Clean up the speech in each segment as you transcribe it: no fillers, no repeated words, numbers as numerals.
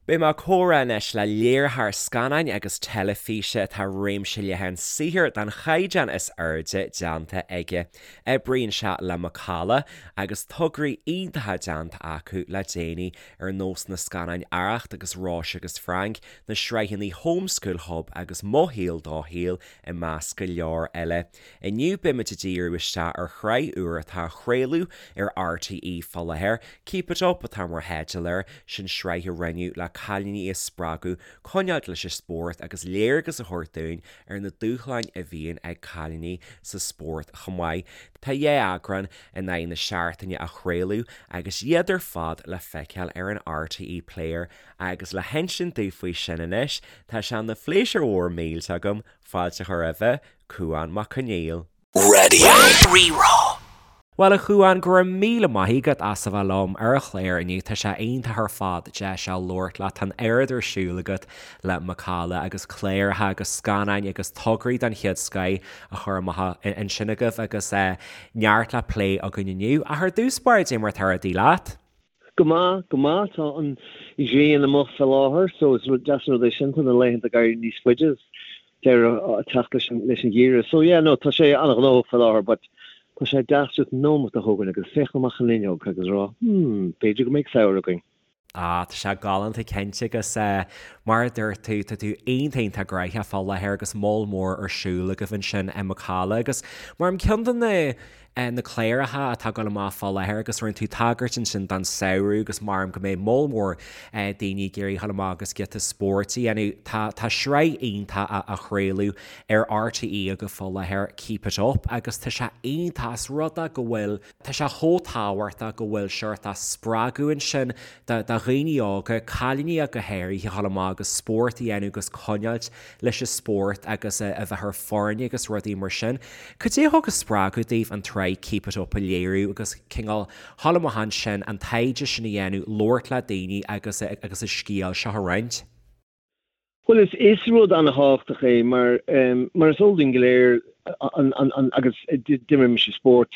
Beidh mé ag comhrá anois le léiritheoir scannáin agus teilifíse atá réimse leathan saothair den chaighdeán is airde déanta aige. Oibríonn sé le Macalla agus tograí iontacha déanta acu le déanaí ar nós na scannáin Arracht agus Róise agus Frank, na sraitheanna Home School Hub agus Mo Shaol Do Shaol i measc go leor eile. Inniu beimid ag díriú isteach ar shraith úr atá á chraoladh ar RTÉ fá láthair, Keep It Up atá mar theideal air, sin sraith a rinneadh le cailíní a spreagadh coinneáilt leis an spórt agus léargas a thabhairt dúinn ar na dúshláin a bhíonn ag cailíní sa spórt chomh maith. Tá dhá eagrán in aghaidh na seachtaine á chraoladh agus iad ar fad le feiceáil ar an RTÉ Player agus le hinsint dúinn faoi sin anois, tá sé ina phléisiúr mhór millteach agam fáilte a chur roimhe, Cúán Mac Conghail. Radio Rí-Rá. Bhuel a Chúáin, go raibh míle maith agat as a bheith liom ar an chlár inniu. Tá sé iontach ar fad deis a labhairt leat. Tá an oiread ar siúl agat le Macalla agus cláracha agus scannáin agus tograí den chéad scoith á chur amach ansin agaibh agus neart le plé againn inniu. Ach ar dtús báire, cad é mar atá rudaí leat? Go maith, go maith. Tá an ghrian amuigh fé láthair so is deas an rud é sin. Tá na laethanta ag éirí níos faide is deireadh ag teacht leis an leis an gheimhreadh. So yeah, no, tá sé an-ghnóthach fé láthair but tá sé deas just nóimeat a thógaint agus féachaint amach an fhuinneog agus a rá hmm, b'fhéidir go mbeidh samhradh againn. Ah, tá sé galánta cinnte agus eh, mar a dúirt tú, tá tú iontach iontach gnoitheach fá láthair agus moll mór ar siúl agaibh ansin i Macalla agus mar ceann de na na cláracha atá ag dul amach fá láthair agus rinne tú tagairt ansin don samhradh agus maram go mbeidh moll mór daoine ag iarraidh dhul amach agus giota spóirt a dhéanamh. Tá tá sraith iontach á chraoladh ar RTÉ agaibh fá láthair, Keep It Up, agus tá sé iontach as rud é go bhfuil, tá sé chomh tábhachtach go bhfuil seort spreagadh ansin do dhaoine óga, cailíní ach go háirithe, a dhul amach agus spórt a dhéanamh agus coinneáilt leis an spórt agus a bheith ar foirne agus rudaí mar sin. Cad é a thug an spreagadh daoibh an tsraith Keep It Up a léiriú agus cineál dhul amach ansin, an taighde sin a dhéanamh, labhairt le daoine agus agus an scéal seo a roinnt? Bhuel, is is rud an-thábhachtach é mar mar is eol dúinn go léir an an an agus d'imir mise spórt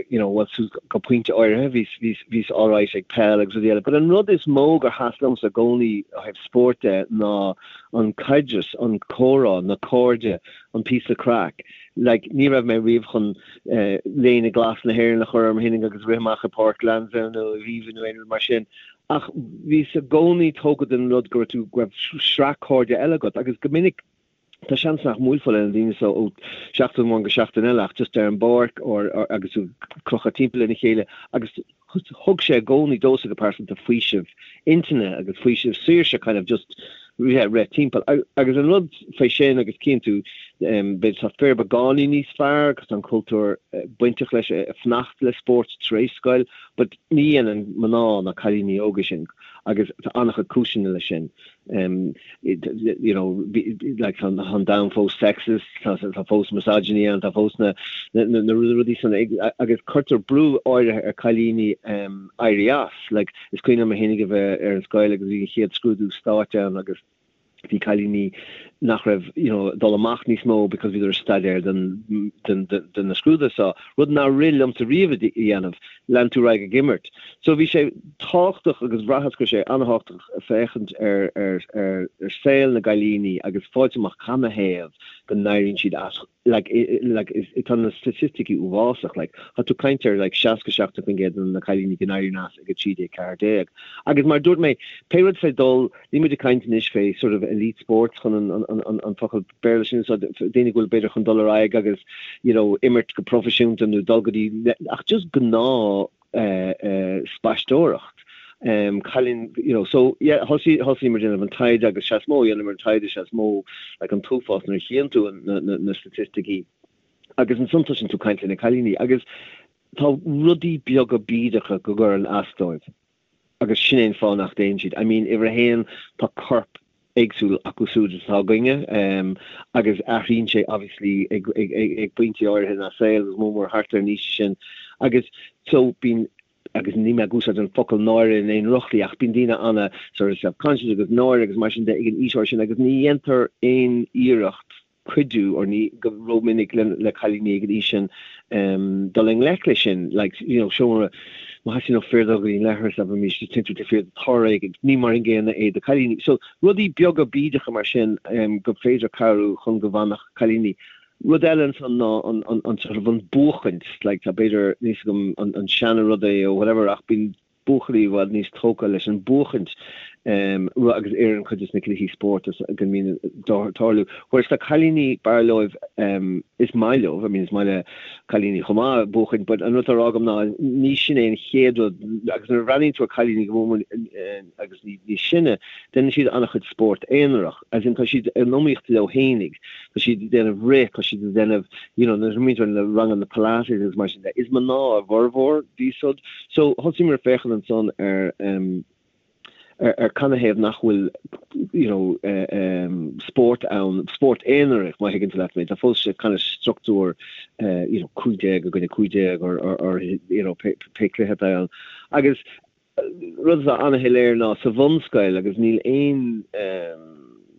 you know well suas go pointe áirithe bhíos bhíos bhíos alright ag peil agus rudaí eile but an rud is mó gur sheas liomsa i gcónaí ó thaobh spóirt de ná an caidreas, an comhrá, na cairde, an píosa craic. Like, ní raibh mé riamh chun léine glas na hÉireann a chur orm fhéinig agus rith amach i Páirc Lansdowne nó Aviva nó aon rud mar sin, ach bhíos i gcónaí tógtha den rud go raibh tú, go raibh sraith cairde eile agat agus go minic tá seans nach mbuailfeá le na daoine so ó sheachtain amháin go seachtain eile ach just ar an bpáirc or agus tú ag crochadh timpeall lena chéile agus thug sé i gcónaí domhsa go pearsanta faoiseamh intinne agus faoiseamh saoirse kind of just yeah, rith timpeall. Agus an rud fé sin agus cíonn tú b'fhéidir tá fir beagáinín níos fearr agus tá an cultúr bainteach leis ag fanacht le spórt tar éis scoil but ní dhéanann mná ná cailíní óga sin agus tá an-chuid cúiseanna leis sin. you know, like tá an domhan fós sexist, tá tá fós misogyny ann, tá fós na na na rudaí san agus cuirtear brú áirithe ar cailíní éirí as. Like is cuimhin liom mé fhéinig a bheith ar an scoil agus bhí an chéad scrúdú stáit ann agus bhí cailíní nach raibh you know dul amach níos mó because bhíodar ag staidéar don don don na scrúduithe seo, rud nár rith liomsa riamh a dhéanamh. lean tú ar aghaidh ag imirt. So bhí sé tábhachtach agus bhraitheas go raibh sé an-thábhachtach féachaint ar ar ar ar saol na gcailíní agus fáilt amach canathaobh go n-éiríonn siad as like like is tá na staitisticí uafásach like tá tú ag caint ar like 60 70% de na cailíní go n-éiríonn as ag 13 14 agus mar a dúirt mé pé rud fé dul Níl muid ag caint anois fé sort of elite sports chun an an an an focal Béarla sin a úsáid, daoine go bhfuil b'fhéidir chun dul ar aghaidh agus you know imirt go proifisiúnta nó dul go dtí ach just gnáth eh eh spaisteoireacht. Um cailín you know so yeah thosaigh thosaíomar ag déanamh an taighde agus sea is mó a dhéanamar an taighde sea is mó like an t-uafás nuair a chíonn tú na na na staitisticí agus ansan tosaíonn tú caint le na cailíní agus tá rudaí beaga bídeacha go gcuireann as dóibh. agus sin é an fáth nach dtéann siad. I mean, uimhir a haon, tá corp éagsúil acu siúd is atá againne agus athraíonn sé obviously ag ag ag pointí áirithe ina saol agus mór mór thart ar an aois sin agus so bíonn agus níl mé ag úsáid an focal náire in aon drochshlí ach bíonn daoine ana sort of self-conscious agus náire agus mar sin de ag an aois áirithe sin agus ní dhéantar aon iarracht cuidiú or ní go rómhinic le cailíní ag an aois sin dul i ngleic leis sin like you know seomra. Má theastaíonn ó fir dul go dtí an leithreas, abraimis, téann tú taobh thiar de tor éigin, ní mar an gcéanna é do cailíní. So, rudaí beaga bídeacha mar sin gur féidir cabhrú chun go bhfanfadh cailíní. Rud eile ansan ná an, an, an sort of an buachaint, like tá b'fhéidir, níl 'fhios agam an, an seana rud é or whatever ach bíonn buachaillí i bhfad níos tógtha leis an buachaint agus ar an chuid de na cluichí spóirt go mbíonn ag tarlú. Whereas tá cailíní, b'fhearr leo, is maith leo, I mean is maith le cailíní chomh maith buachaint but an rud atá á rá agam ná ní sin é an chéad rud agus nuair a bhreathnaíonn tú ar cailíní go mór agus níos sine, déanann siad an-chuid spórt aonarach, as in tá siad in iomaíocht leo fhéinig, tá siad ag déanamh rith, tá siad ag déanamh, you know, nuair a bhíonn tú ar na ranganna Pilates agus mar sin de, is mná a bhformhór díobh siúd. So thosaíomar ag féachaint ansan ar em ar ar canathaobh nach bhfuil you know em spórt ann, spórt aonarach má thuigeann tú leat mé, tá fós sé kind of struchtúr eh you know 15 i gcoinne 15 or or or you know pé pé cluiche atá ann. Agus Rud atá an-shoiléir ná sa bhunscoil, agus níl aon,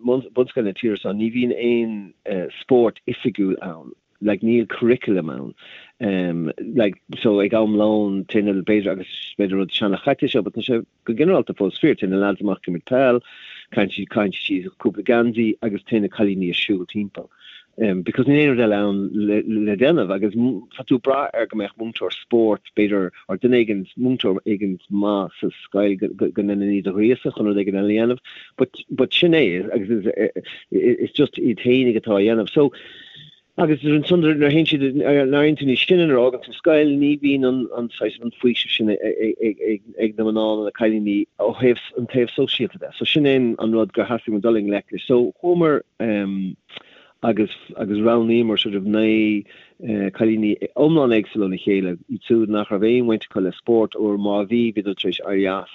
bunscoil na tíre seo, ní bhíonn aon spórt oifigiúil ann, like níl curriculum ann. Like so ag am lóin téann na, b'fhéidir, agus b'fhéidir rud seana-chaite seo, but tá sé go ginearálta fós fíor, téann na lads amach ag imirt peil, caitheann siad, caitheann siad cúpla geansaí agus téann na cailíní ag siúl timpeall. Because níl aon rud eile ann le déanamh agus tá tú ag brath ar go mbeadh múinteoir spóirt, b'fhéidir, or duine éigin, múinteoir éigin maith sa scoil go ndéanann iad a ghríosadh chun rud éigin eile a dhéanamh. But, but sin é agus is, is just iad fhéinig atá á dhéanamh. So, agus ansan nuair a théann siad, nuair a éiríonn tú níos sine, nuair a fhágann tú scoil, ní bhíonn an, an saghas, an faoiseamh sin ag na mná nó na cailíní ó thaobh an taobh sóisialta de. So sin é an rud gur theastaigh uainn dul i ngleic leis. So chuamar, agus agus roghnaíomar sort of 9 cailíní iomlán éagsúil óna chéile, iad siúd nach raibh aon bhaint acu le spórt or má bhí, bhíodar tar éis éirí as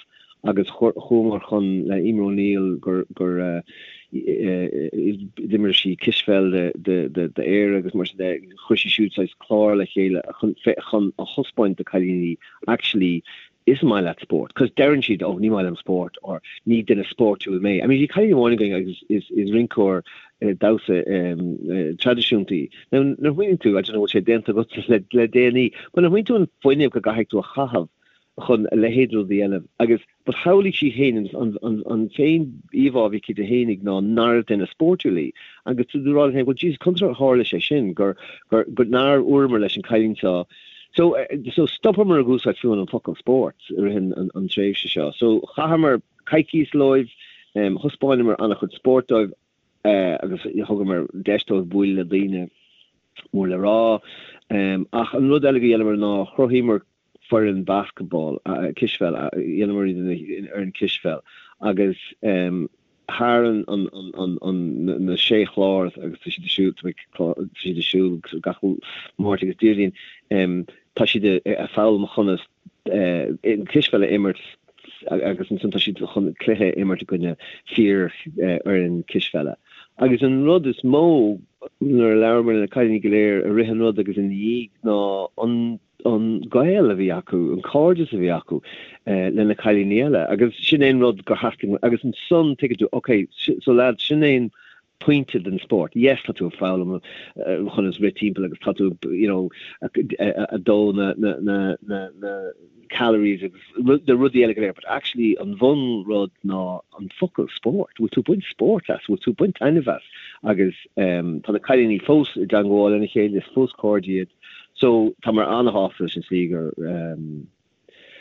agus chuamar chun le Emer O'Neill gur gur d'imir sí cispheil d'Éire agus mar sin de, chuir sí siúd saghas clár le chéile chun chun a thaispeáint do cailíní actually is maith leat spórt, cos deireann siad oh ní maith liom spórt or ní duine spórtúil mé. I mean bhí cailín amháin againn agus is is rinceoir damhsa traidisiúnta í. Now nuair a smaoiníonn tú, I don't know bhfuil sé déanta agat le le déanaí, but nuair a smaoiníonn tú an fuinneamh go gcaithfidh tú a chaitheamh chun a leithéid rud a dhéanamh agus but shamhlaigh sí féin an an an féin íomhá a bhí aici di fhéinig ná nárbh duine spórtúil í agus tú ag rá leat féin well Jesus conas ar tharla sé sin gur gur gur nár dhúramar leis an cailín seo So, so stopamar ag úsáid fiú an focal spórt i rith an tréimhse seo. So chaitheamar coicís leo, thaispeánamar an-chuid spóirt dóibh agus thugamar deis dóibh bualadh le daoine mór le rá. Ach an rud eile go dhéanamar ná chruthaíomar foireann basketball, cispheil, dhéanamar iad ina fhoireann cispheil agus thar na sé chlár agus tá siad ag siúl, tá siad ag siúl gach Máirt agus Déardaoin, tá siad ag foghlaim conas cispheil a imirt agus ansan tá siad chun cluiche a imirt i gcoinne fíor fhoireann cispheile. Agus an rud is mó nuair a labhramar le na cailíní go léir i rith an rud agus ina dhiaidh ná an an gaol a bhí acu, an cairdeas a bhí acu le na cailíní eile agus sin é an rud gur theastaigh agus ansan tuigeann tú ok so lads sin é an pointe den spórt, yes tá tú ag foghlaim conas rith timpeall agus tá tú you know ag dó na na na na na calories agus na rudaí eile go léir but actually an bhun rud ná an focal spórt, bhfuil tú ag baint spórt as, bhfuil tú ag baint taitneamh as agus tá na cailíní fós i dteangmháil lena chéile, is fós cairde iad. So, táimid an-shásta leis an tslí gur,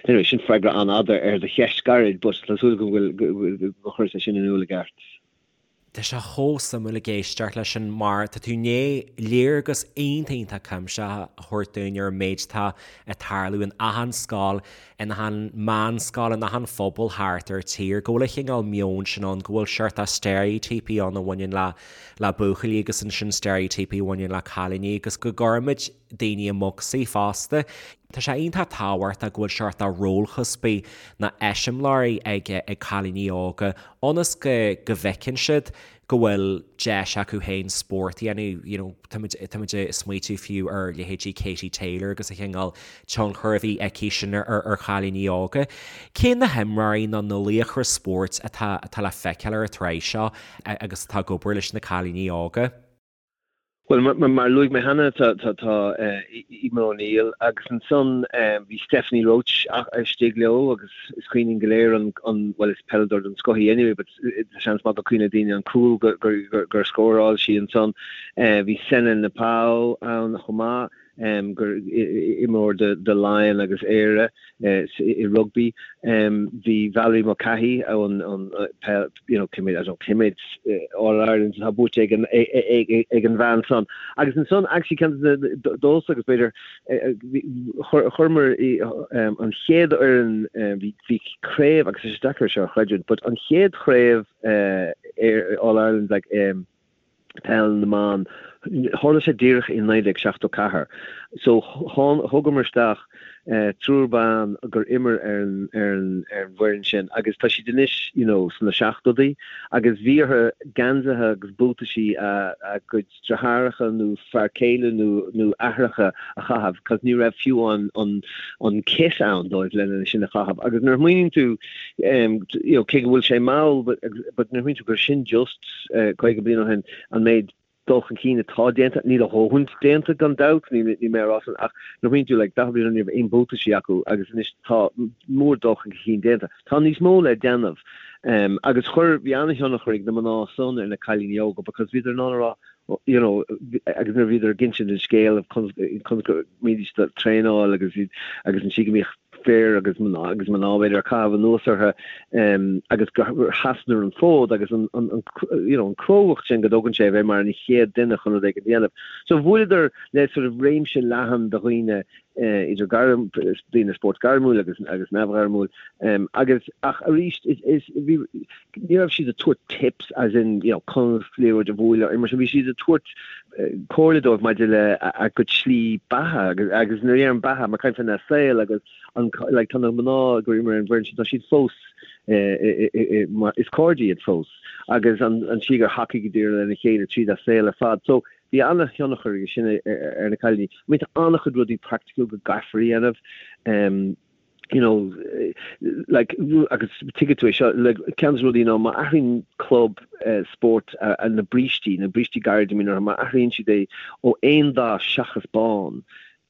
anyway, sin freagra an-fhada ar do cheist gairid, but tá súil agam go bhfuil, gur chuir sé sin in iúl i gceart. Tá sé chomh suimiúil ag éisteacht leis sin mar tá tú i ndiaidh léargas iontach iontach cuimsitheach a thabhairt dúinn ar an méid atá ag tarlú in achan scoil, in achan meánscoil, in achan phobal thart ar tír, go bhfuil an chineál meoin sin ann, go bhfuil seort steiréitíopaí ann a bhaineann le le buachaillí agus ansin steiréitíopaí a bhaineann le cailíní agus go gcuirimid daoine i mbocsaí fosta. Tá sé iontach tábhachtach go bhfuil seort de rólchuspaí nó eiseamláirí ag ag cailíní óga ionas go go bhfeiceann siad go bhfuil deis acu féin spórt a dhéanamh, you know, táimid táimid ag smaoitiú fiú ar leithéidí Katie Taylor agus an chineál tionchar a bhí aici sin ar ar chailíní óga. Cé na himreoirí nó na laochra spóirt atá atá le feiceáil ar an tsraith seo? agus atá ag obair leis na cailíní óga. Bhuel, mar a luaigh mé cheana, tá Eimear O'Neill agus ansan bhí Stephanie Roche istigh leo agus is cuimhin linn go léir an, bhuel is peileadóir den scoth í anyway but tá seans maith go cuimhneoidh daoine an cúl gur scóráil sí ansan. Bhí Sene Naoupu ann chomh maith. gur imreoir do Laighin agus Éire i rugbaí. Bhí Valerie Mulcahy ón peil, you know, cé mhéad, I don't know, cé mhéad All Irelands atá buaite ag an ag an bhean san. Agus ansan actually ceann de na domsa agus b'fhéidir chuireamar an chéad fhoireann bhí bhí craobh agus is deacair seo a chreidiúint but an chéad chraobh All Ireland like Peil na mBan. Tharla sé díreach i 1974. So thugamar isteach triúr ban gur imir ar an ar an ar an bhfoireann sin agus tá siad anois you know sna seachtóidí agus bhí orthu geansaithe agus buataisí a a gcuid deartháireacha nó fear céile nó nó aithreacha a chaitheamh cos ní raibh fiú an an an kit ann dóibh lena sin a chaitheamh agus nuair a smaoiníonn tú you know cé go bhfuil sé mall but but nuair a smaoiníonn tú gur sin just 50 bliain ó shin, an méid dul chun cinn atá déanta, níl a dhóthain déanta gan dabht, níl mé a rá san, ach nuair a smaoiníonn tú like 40 bliain ó shin ní raibh aon buataisí acu agus anois tá mór dul chun cinn déanta. Tá níos mó le déanamh agus chuir, bhí an-thionchar ag na mná san ar na cailíní óga because bhíodar in ann a rá you know agus nuair a bhíodar ag insint an scéal of conas go mbídís ag traenáil agus agus an tslí go mbíodh fir agus mná agus mná b'fhéidir ag caitheamh anuas orthu agus gur sheasadar an fód agus an you know an crógacht sin go dtógann sé a bheith mar an chéad duine chun rud éigin a dhéanamh. So bhuaileadar le sort of réimse leathan de dhaoine idir gairm daoine spóirt gairmiúil agus agus neamhghairmiúil agus ach arís is is bhí ní raibh siad ag tabhairt tips as in you know conas liathróid a bhualadh mar sin bhí siad ag tabhairt comhairle dóibh maidir le a gcuid slí beatha agus agus nuair a deirim beatha mar caint faoina saol agus an like tá na mná gur imir ar an bhfoireann sin tá siad fós mar is cairde iad fós agus an an tslí gur thacaíodar lena chéile tríd a saol ar fad so bhí an-thionchar aige sin ar na cailíní. I mean tá an-chuid rudaí praiticiúil go gcaithfear a dhéanamh um, you know, like, agus tuigfidh tú é seo, like, ceann de na rudaí ná má athraíonn club spóirt na brístí, na brístí gairide a mbíonn orthu, má athraíonn siad é ó aon dath seachas bán,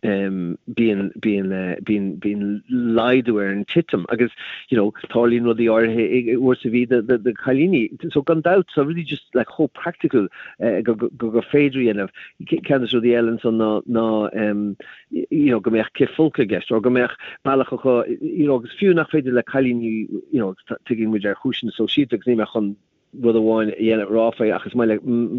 bíonn, bíonn, bíonn, bíonn laghdú ar an titim agus, you know, tarlaíonn rudaí áirithe uair sa mhí do, do, do chailíní. So gan dabht, tá rudaí just like chomh practical go, go, go féidir a dhéanamh. Ceann de na rudaí eile ansan ná, ná, you know, go mbeadh cithfholcadh i gceist, or go mbeadh bealach acu, you know, agus fiú nach féidir le cailíní, you know, tuigeann muid ar chúiseanna sóisialta agus níl mé chun rud amháin a dhéanamh rá faoi ach is maith le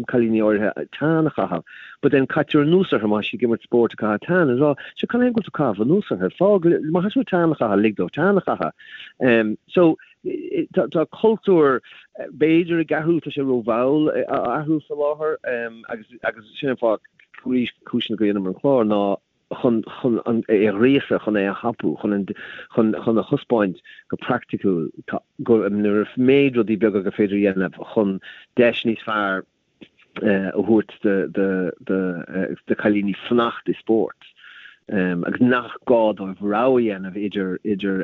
cailíní áirithe tan a chaitheamh, but then caitear anuas orthu má tá siad ag imirt spóirt ag caitheamh tan is rá, sure cad é go bhfuil tú ag caitheamh anuas orthu, fág, má tá siad tan a chaitheamh, lig dóibh tan a chaitheamh. So tá tá cultúr b'fhéidir ag athrú, tá sé rómhall á athrú faoi láthair agus agus sin an fáth arís cúiseanna go dhéanamar an clár ná chun chun an é a ghríosadh, chun é a thapú, chun an chun chun a thaispeáint go praiticiúil tá go an méid rudaí beaga gur féidir a dhéanamh chun deis níos fearr a thabhairt do do do do chailíní fanacht i spórt agus nach gá dóibh rogha a dhéanamh idir idir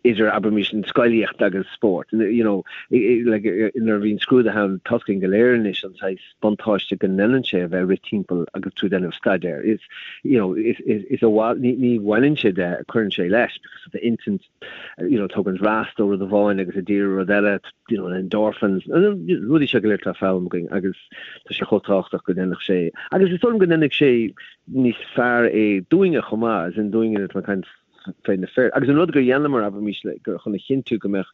idir abraimis an scolaíocht agus spórt. You know, like, nuair a bhíonn scrúduithe ann tá a fhios againn go léir anois an saghas buntáiste go ndéanann sé a bheith ag rith timpeall agus tú ag déanamh staidéir. Is, you know, is, is, is a ní, ní bhaineann sé de, cuireann sé leis because of the intinn, you know, tugann rest ó rud amháin agus ag díriú rud eile, you know, endorphins, rudaí seo go léir atá foghlama againn agus tá sé chomh tábhachtach go ndéanfadh sé, agus is dóigh liom go ndéanfaidh sé níos fearr é dúinne chomh maith, as in dúinne atá ag caint fé na fir. Agus an rud gur dheineamar, abraimis, le, gur chun a chinntiú go mbeadh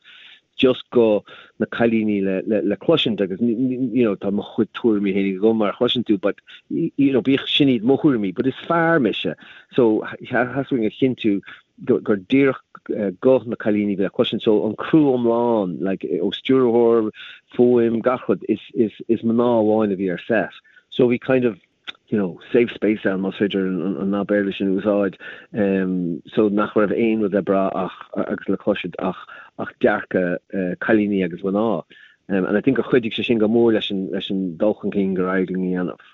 just guth na cailíní le, le, le cloisint agus, you know, tá mo chuid tuairimí féin agam mar a chloiseann tú, but, you know, bíodh sin iad mo thuairimí, but is fear mise. So, theastaigh uainn a chinntiú gur, gur díreach guth na cailíní le cloisint. So, an criú iomlán, like, ó stiúrthóir, fuaim, gach rud, is, is, is mná amháin a bhí ar set. So, bhí kind of, you know, safe space ann, más féidir an nath Béarla sin a úsáid, so nach raibh aon rud le brath ach, agus le cloisint ach, ach dearcadh cailíní agus mná. And I think gur chuidigh sé sin go mór leis an, leis an dul chun cinn gur éirigh linn a dhéanamh.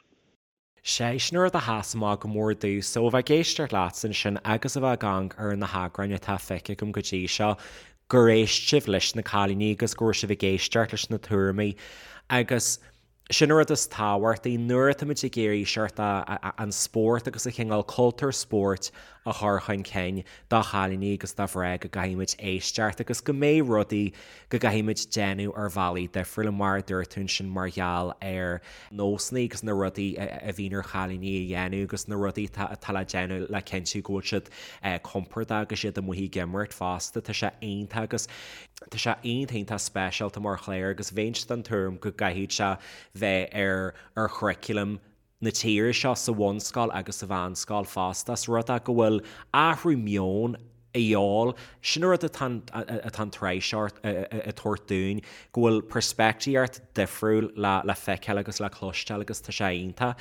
Sé sin rud a sheas amach go mór domhsa ó bheith ag éisteacht leatsa ansin agus a bheith ag amharc ar na heagráin atá feicthe agam go dtí seo, gur éist sibh leis na cailíní agus go raibh sibh ag éisteacht leis na tuairimí agus. Sin an rud is tábhachtaí nuair atáimid ag iarraidh seort an spórt agus an cineál cultúr spóirt a chur chun cinn do chailíní agus do mhná go gcaithfimid éisteacht agus go mbeidh rudaí go gcaithfimid déanamh ar bhealaí difriúla mar a dúirt tú ansin mar gheall ar nósanna agus na rudaí a bhíonn ar chailíní a dhéanamh agus na rudaí atá le déanamh le cinntiú go bhfuil siad compordach agus iad amuigh ag imirt fosta. Tá sé iontach agus. Tá sé iontach iontach speisialta mar chlár agus bheinnse den tuairim go gcaithfidh sé bheith ar ar churriculum na tíre seo sa bhunscoil agus sa mheánscoil fosta. Is rud é go bhfuil athrú meoin a dhíobháil. Sin an rud atá atá an tsraith seo ag tabhairt dúinn, go bhfuil peirspictíocht difriúil le le feiceáil agus le cloisteáil agus tá sé iontach.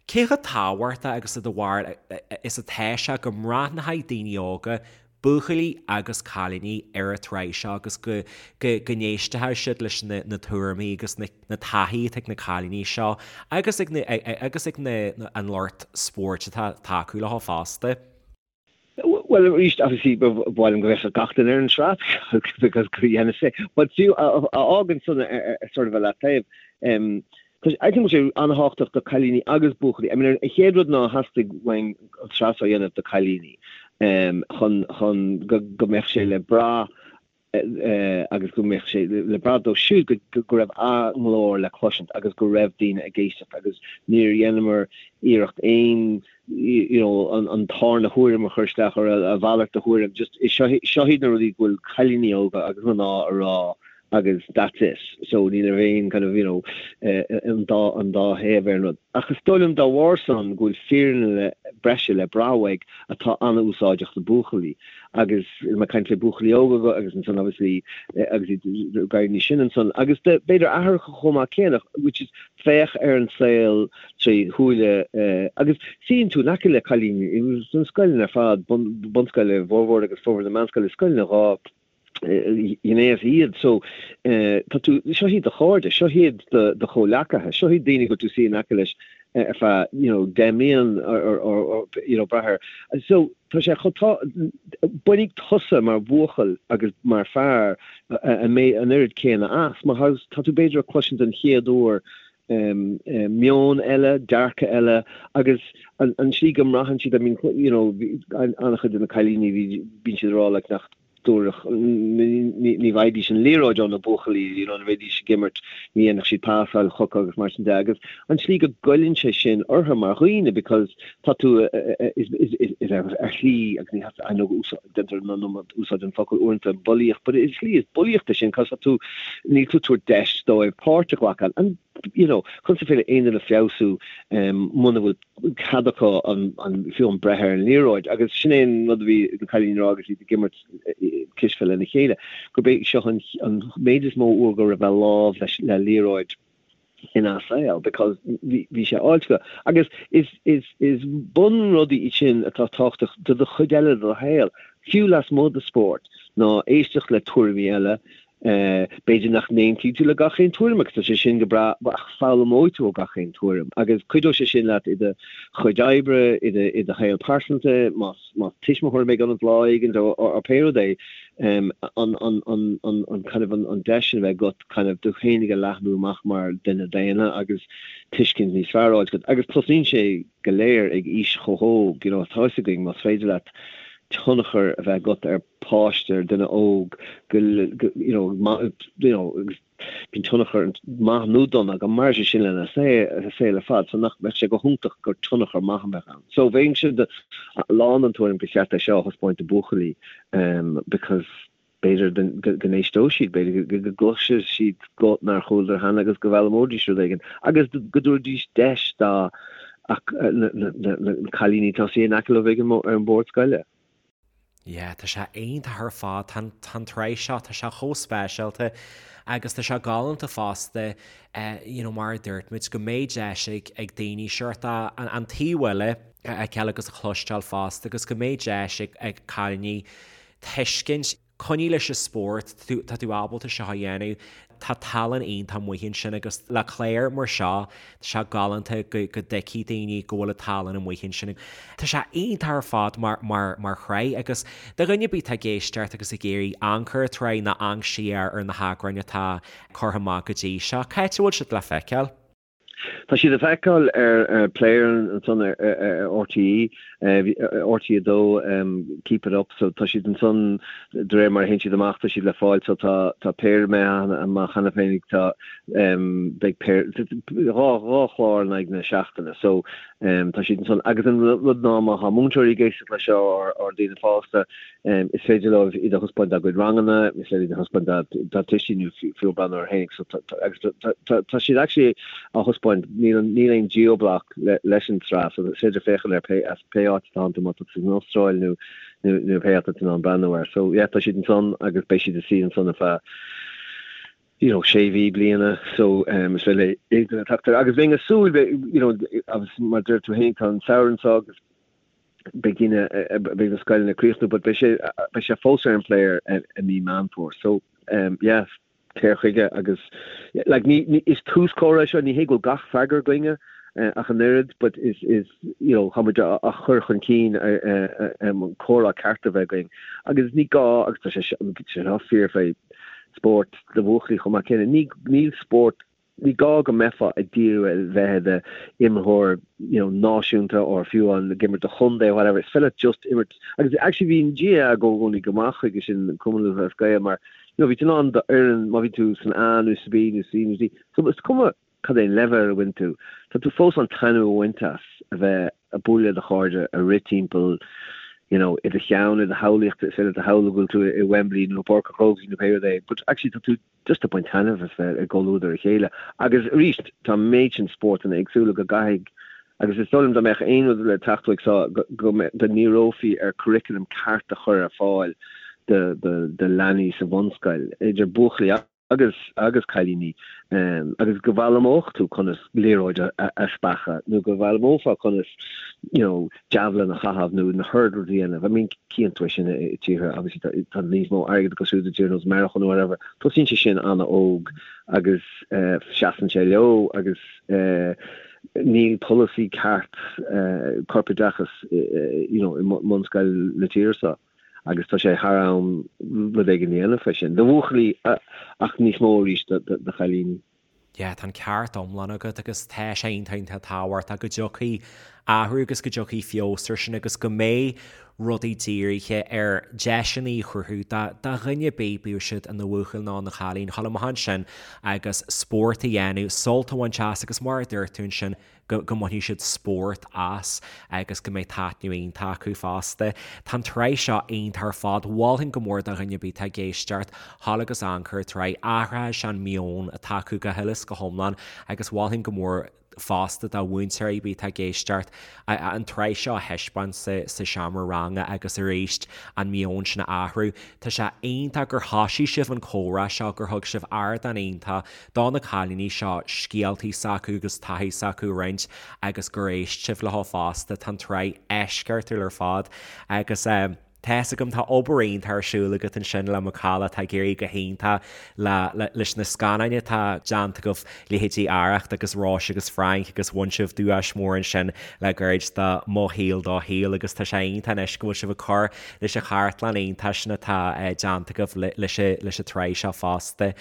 Cé chomh tábhachtach agus i do bharúil is atá sé go mbreathnóidh daoine óga buachaillí agus cailíní ar an tsraith seo agus go go n-éistfeadh siad leis na na tuairimí agus na na taithí atá ag na cailíní seo agus ag na agus ag na an lucht spóirt atá ag tacú leo fosta. Bhuel arís obviously ba mhaith liom go bhféachfadh gach duine ar an tsraith because go dhéanfaidh sé but fiú a fhágann san sort of a leataobh Tá sé, I think sé an-thábhachtach do cailíní agus buachaillí. I mean, an chéad rud ná theastaigh uainn an tsraith seo a dhéanamh do cailíní chun, chun go, go mbeadh sé le brath agus go mbeadh sé le brath dóibh siúd go, go raibh a nglór le cloisint agus go raibh daoine ag éisteacht agus níor dheineamar iarracht aon, you know, an, an tarna thuairim a chur isteach or a mhalairt de thuairim. Just, seo, seo iad na rudaí go bhfuil cailíní óga agus mná a rá agus that's it. So ní raibh aon kind of, you know, an dá, an dá thaobh ar an rud. Ach is dóigh liom dá bharr san go bhfuil fírinne le, breise le brath uaidh atá an-úsáideach do buachaillí. Agus mé ag caint le buachaillí óga agus ansan obviously agus iad ag éirí níos sine ansan. Agus de, b'fhéidir aithreacha chomh maith céanna, which is féach ar an saol tré shúile agus suíonn tú in aice le cailíní sna scoileanna ar fad, bun, bunscoile, formhór agus formhór na meánscoile, scoileanna 2 ghnéas iad. So, tá tú, seo iad do chairde, seo iad do do chomhleacaithe, seo iad daoine go bhfuil tú suí in aice leis ar feadh, you know, 10 mblian or, or, or, you know, brath air. So, tá sé chomh tá, bainfidh tusa mar bhuachaill agus mar fear an an oiread céanna as, mar tá tú b'fhéidir ag cloisint den chéad uair meon eile, dearcadh eile agus an an slí go mbraitheann siad, I mean, you know, an-chuid de na cailíní bhí, bíonn siad ag rá like nach dtabharfadh, ní bhfaighidís an liathróid ó na buachaillí, you know, nuair a bhídís ag imirt, ní dhéanfadh siad pasáil chucu agus mar sin de agus an tslí go goilleann sé sin orthu mar dhaoine because tá tú is, is, is, is ar, ar shlí agus ní I know déantar an iomad úsáid an focal uaireanta bulaíocht but is slí is bulaíocht é sin cos tá tú níl tú ag tabhairt deis dóibh páirt a ghlacadh and you know conas is féidir le aon duine feabhsú muna bhfuil cead acu an, an, fiú an breith ar an liathróid agus sin é an rud a bhí na cailíní ag rá agus iad ag imirt cispheil lena chéile, gurb é seo an, an méid is mó uair go raibh a lámh leis, le liathróid ina saol because bhí, bhí sé áilte acu. Agus is, is, is bunrudaí iad sin atá tábhachtach do do chuid eile de do shaol, fiú lasmuigh de spórt, ná éisteacht le tuairimí eile, B'fhéidir nach n-aontaíonn tú le gach aon tuairim agus tá sé sin go breá ach foghlaimeoidh tú ó gach aon tuairim agus cuideoidh sé sin leat i do chuid oibre, i do i do shaol pearsanta, más más tuismitheoir a bheidh ionat lá éigin or pé rud é, an an an an an kind of an an deis sin a bheith agat kind of tú féinig a leathnú amach mar duine daonna agus tuiscint níos fearr a fháil agat agus tosnaíonn sé go léir ag aois chomh hóg, you know, tá fhios againn más féidir leat tionchar a bheith agat ar páiste, ar duine óg, go, you know, you know, agus bíonn tionchar maith nó dona go mairfidh sé sin lena saol ar fad, so nach mbeadh sé go hiontach gur tionchar maith a bheadh ann. So bheinnse lán den tuairim gur cheart é seo a thaispeáint do buachaillí because b'fhéidir go n-éisteodh siad, b'fhéidir go gcloisfidh siad guth nár chualadar cheana agus go bhfoghlaimeoidís rud éigin agus go dtabharfaidís deis dá na cailíní atá suí in aice leo ag an ar an bord scoile. Yeah, tá sé iontach ar fad, tá an, tá an tsraith seo, tá sé chomh speisialta agus tá sé galánta fosta, you know, mar a dúirt muid, go mbeidh deis ag, ag daoine seort an, an taobh eile a fheiceáil agus a chloisteáil fosta agus go mbeidh deis ag, ag cailíní tuiscint, Coinnigh leis an spórt, tá tú ábalta seo a dhéanamh, tá tallann iontach amuigh ansin agus le clár mar seo, tá sé galánta go dtuigfidh daoine go bhfuil an tallann amuigh ansin. Tá sé iontach ar fad mar, mar, mar shraith agus do dhuine ar bith atá ag éisteacht agus ag iarraidh amharc ar an tsraith nó amharc siar ar na heagráin atá curtha amach go dtí seo, cá háit a bhfuil siad le feiceáil? Tá siad le feiceáil ar player ansan ar RTÉ, RTÉ 2, Keep It Up, so tá siad ansan de réir mar a théann siad amach tá siad le fáil so tá tá péire imithe amach cheana féin tá beidh péire dhá chlár in aghaidh na seachtaine so tá siad ansan agus an rud ná má tá múinteoirí ag éisteacht leis seo or daoine fásta Is féidir leo iad a thaispeáint dá gcuid ranganna, is féidir iad a thaispeáint dá dtuistí nó fiú breathnú air féinig. So agus tá siad actually á thaispeáint, níl níl aon geoblock leis an tsraith so is féidir féachaint ar pé as pé áit atá tú má tá tú san Astráil nó nó nó pé áit atá tú in ann breathnú air. So yeah tá siad ansan agus beidh siad ina suí ansan ar feadh you know sé mhí bliana so is féidir le aon duine teacht air. Agus bheinn ag súil you know agus mar deir tú féin tá an samhradh anseo agus beidh daoine, beidh na scoileanna ag críochnú but beidh sé, beidh sé fós ar an player i mí Meán Fómhair. So yeah, téir chuige agus like ní, ní, is tús comhrá é seo, ní hé go bhfuil gach freagra againne ach an oiread but is, is you know, tá muid á chur chun cinn an comhrá ceart a bheith againn agus ní gá agus tá sé seo fíor fé spórt do bhuachaillí chomh maith céanna, ní, níl spórt Ní gá go mbeifeá ag díriú ar bheith i d'imreoir you know náisiúnta or fiú amháin ag imirt do chontae or whatever, is féidir leat just imirt agus actually bhí an GAA i gcónaí go maith chuige sin, Cumann Lúthchleas Gael mar you know bhí tú in ann d'fhoireann má bhí tú san A nó sa B nó C nó D so is cuma cad é an leibhéal a bhain tú, tá tú fós in ann taitneamh a bhaint as a bheith ag bualadh le do chairde, ag rith timpeall you know i do cheann, i do shamhlaíocht, is féidir leat a shamhlú go bhfuil tú i Wembley nó i bPáirc an Chrócaigh nó pé rud é but actually tá tú just ag baint taitneamh as bheith i gcomhluadar a chéile. Agus arís, tá an méid sin spórtanna éagsúla go gcaithfidh, agus is dóigh liom dá mbeadh aon rud le teacht uaidh seo, go ndíreofaí ar curriculum ceart a chur ar fáil do leanaí sa bhunscoil, idir buachaillí agus agus cailíní, agus go bhfoghlaimeodh tú conas liathróid a speachadh nó go bhfoghlaimeofá conas you know, javelin a chaitheamh nó na hurdles a dhéanamh. I mean, cíonn tú é sin i tíortha, obviously tá níos mó airgead acu siúd i dtír nós Meiriceá nó whatever. Tosaíonn sé sin an-óg agus seasann sé leo agus níl polasaí ceart corpoideachas you know, i mbunscoil na tíre seo agus tá sé thar am rud éigin a dhéanamh fé sin. Do bhuachaillí ach níos mó arís do chailíní. Yeah, tá an ceart iomlán agat agus tá sé iontach iontach tábhachtach go dtiocfaidh athrú agus go dtiocfaidh feabhas ar sin agus go mbeidh rudaí dírithe ar deiseanna a chruthú do dhuine ar bith, bíodh siad ina bhuachaill nó ina chailín, dhul amach ansin agus spórt a dhéanamh, sult a bhaint as agus mar a dúirt tú ansin, go mbainfidh siad spórt as agus go mbeidh taitneamh iontach acu fosta. Tá an tsraith seo iontach ar fad, mholfainn go mór do dhuine ar bith atá ag éisteacht, dhul agus amharc ar an tsraith, athraithe sé an meon atá acu go huile is go hiomlán agus mholfainn go mór fosta do mhúinteoirí ar bith atá ag éisteacht an tsraith seo a thaispeáint sa seomra ranga agus arís an meon sin a athrú. Tá sé iontach gur thoisigh sibh an comhrá seo, gur thug sibh ardán iontach do na cailíní seo scéaltaí s'acu agus taithí s'acu a roinnt agus gur éist sibh leo fosta. Tá an tsraith eisceachtúil ar fad agus tá fhios agam tá obair iontach ar siúl agat ansin le Macalla atá ag éirí go hiontach le leis na scannáin atá déanta agaibh, leithéidí Arracht agus Róise agus Frainc agus bhain sibh duais mór ansin le gairid do Mo Shaol Do Shaol agus tá sé iontach anois go bhfuil sibh ag cur leis an chartlann iontach sin atá déanta agaibh leis an tsraith seo fosta.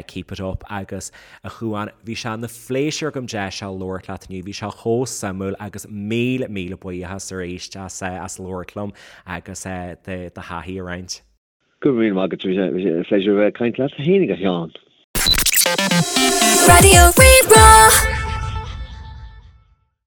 Keep it up agus a Chuáin, bhí sé ina phléisiúr agam deis seo labhairt leat inniu, bhí sé chomh suimiúil agus míle míle buíochas arís as as labhairt liom agus do do thaithí a roinnt. Go raibh míle maith agat, bhí sé pléisiúr a bheith ag caint leat féinig a Sheáin. Raidió Rí-Rá.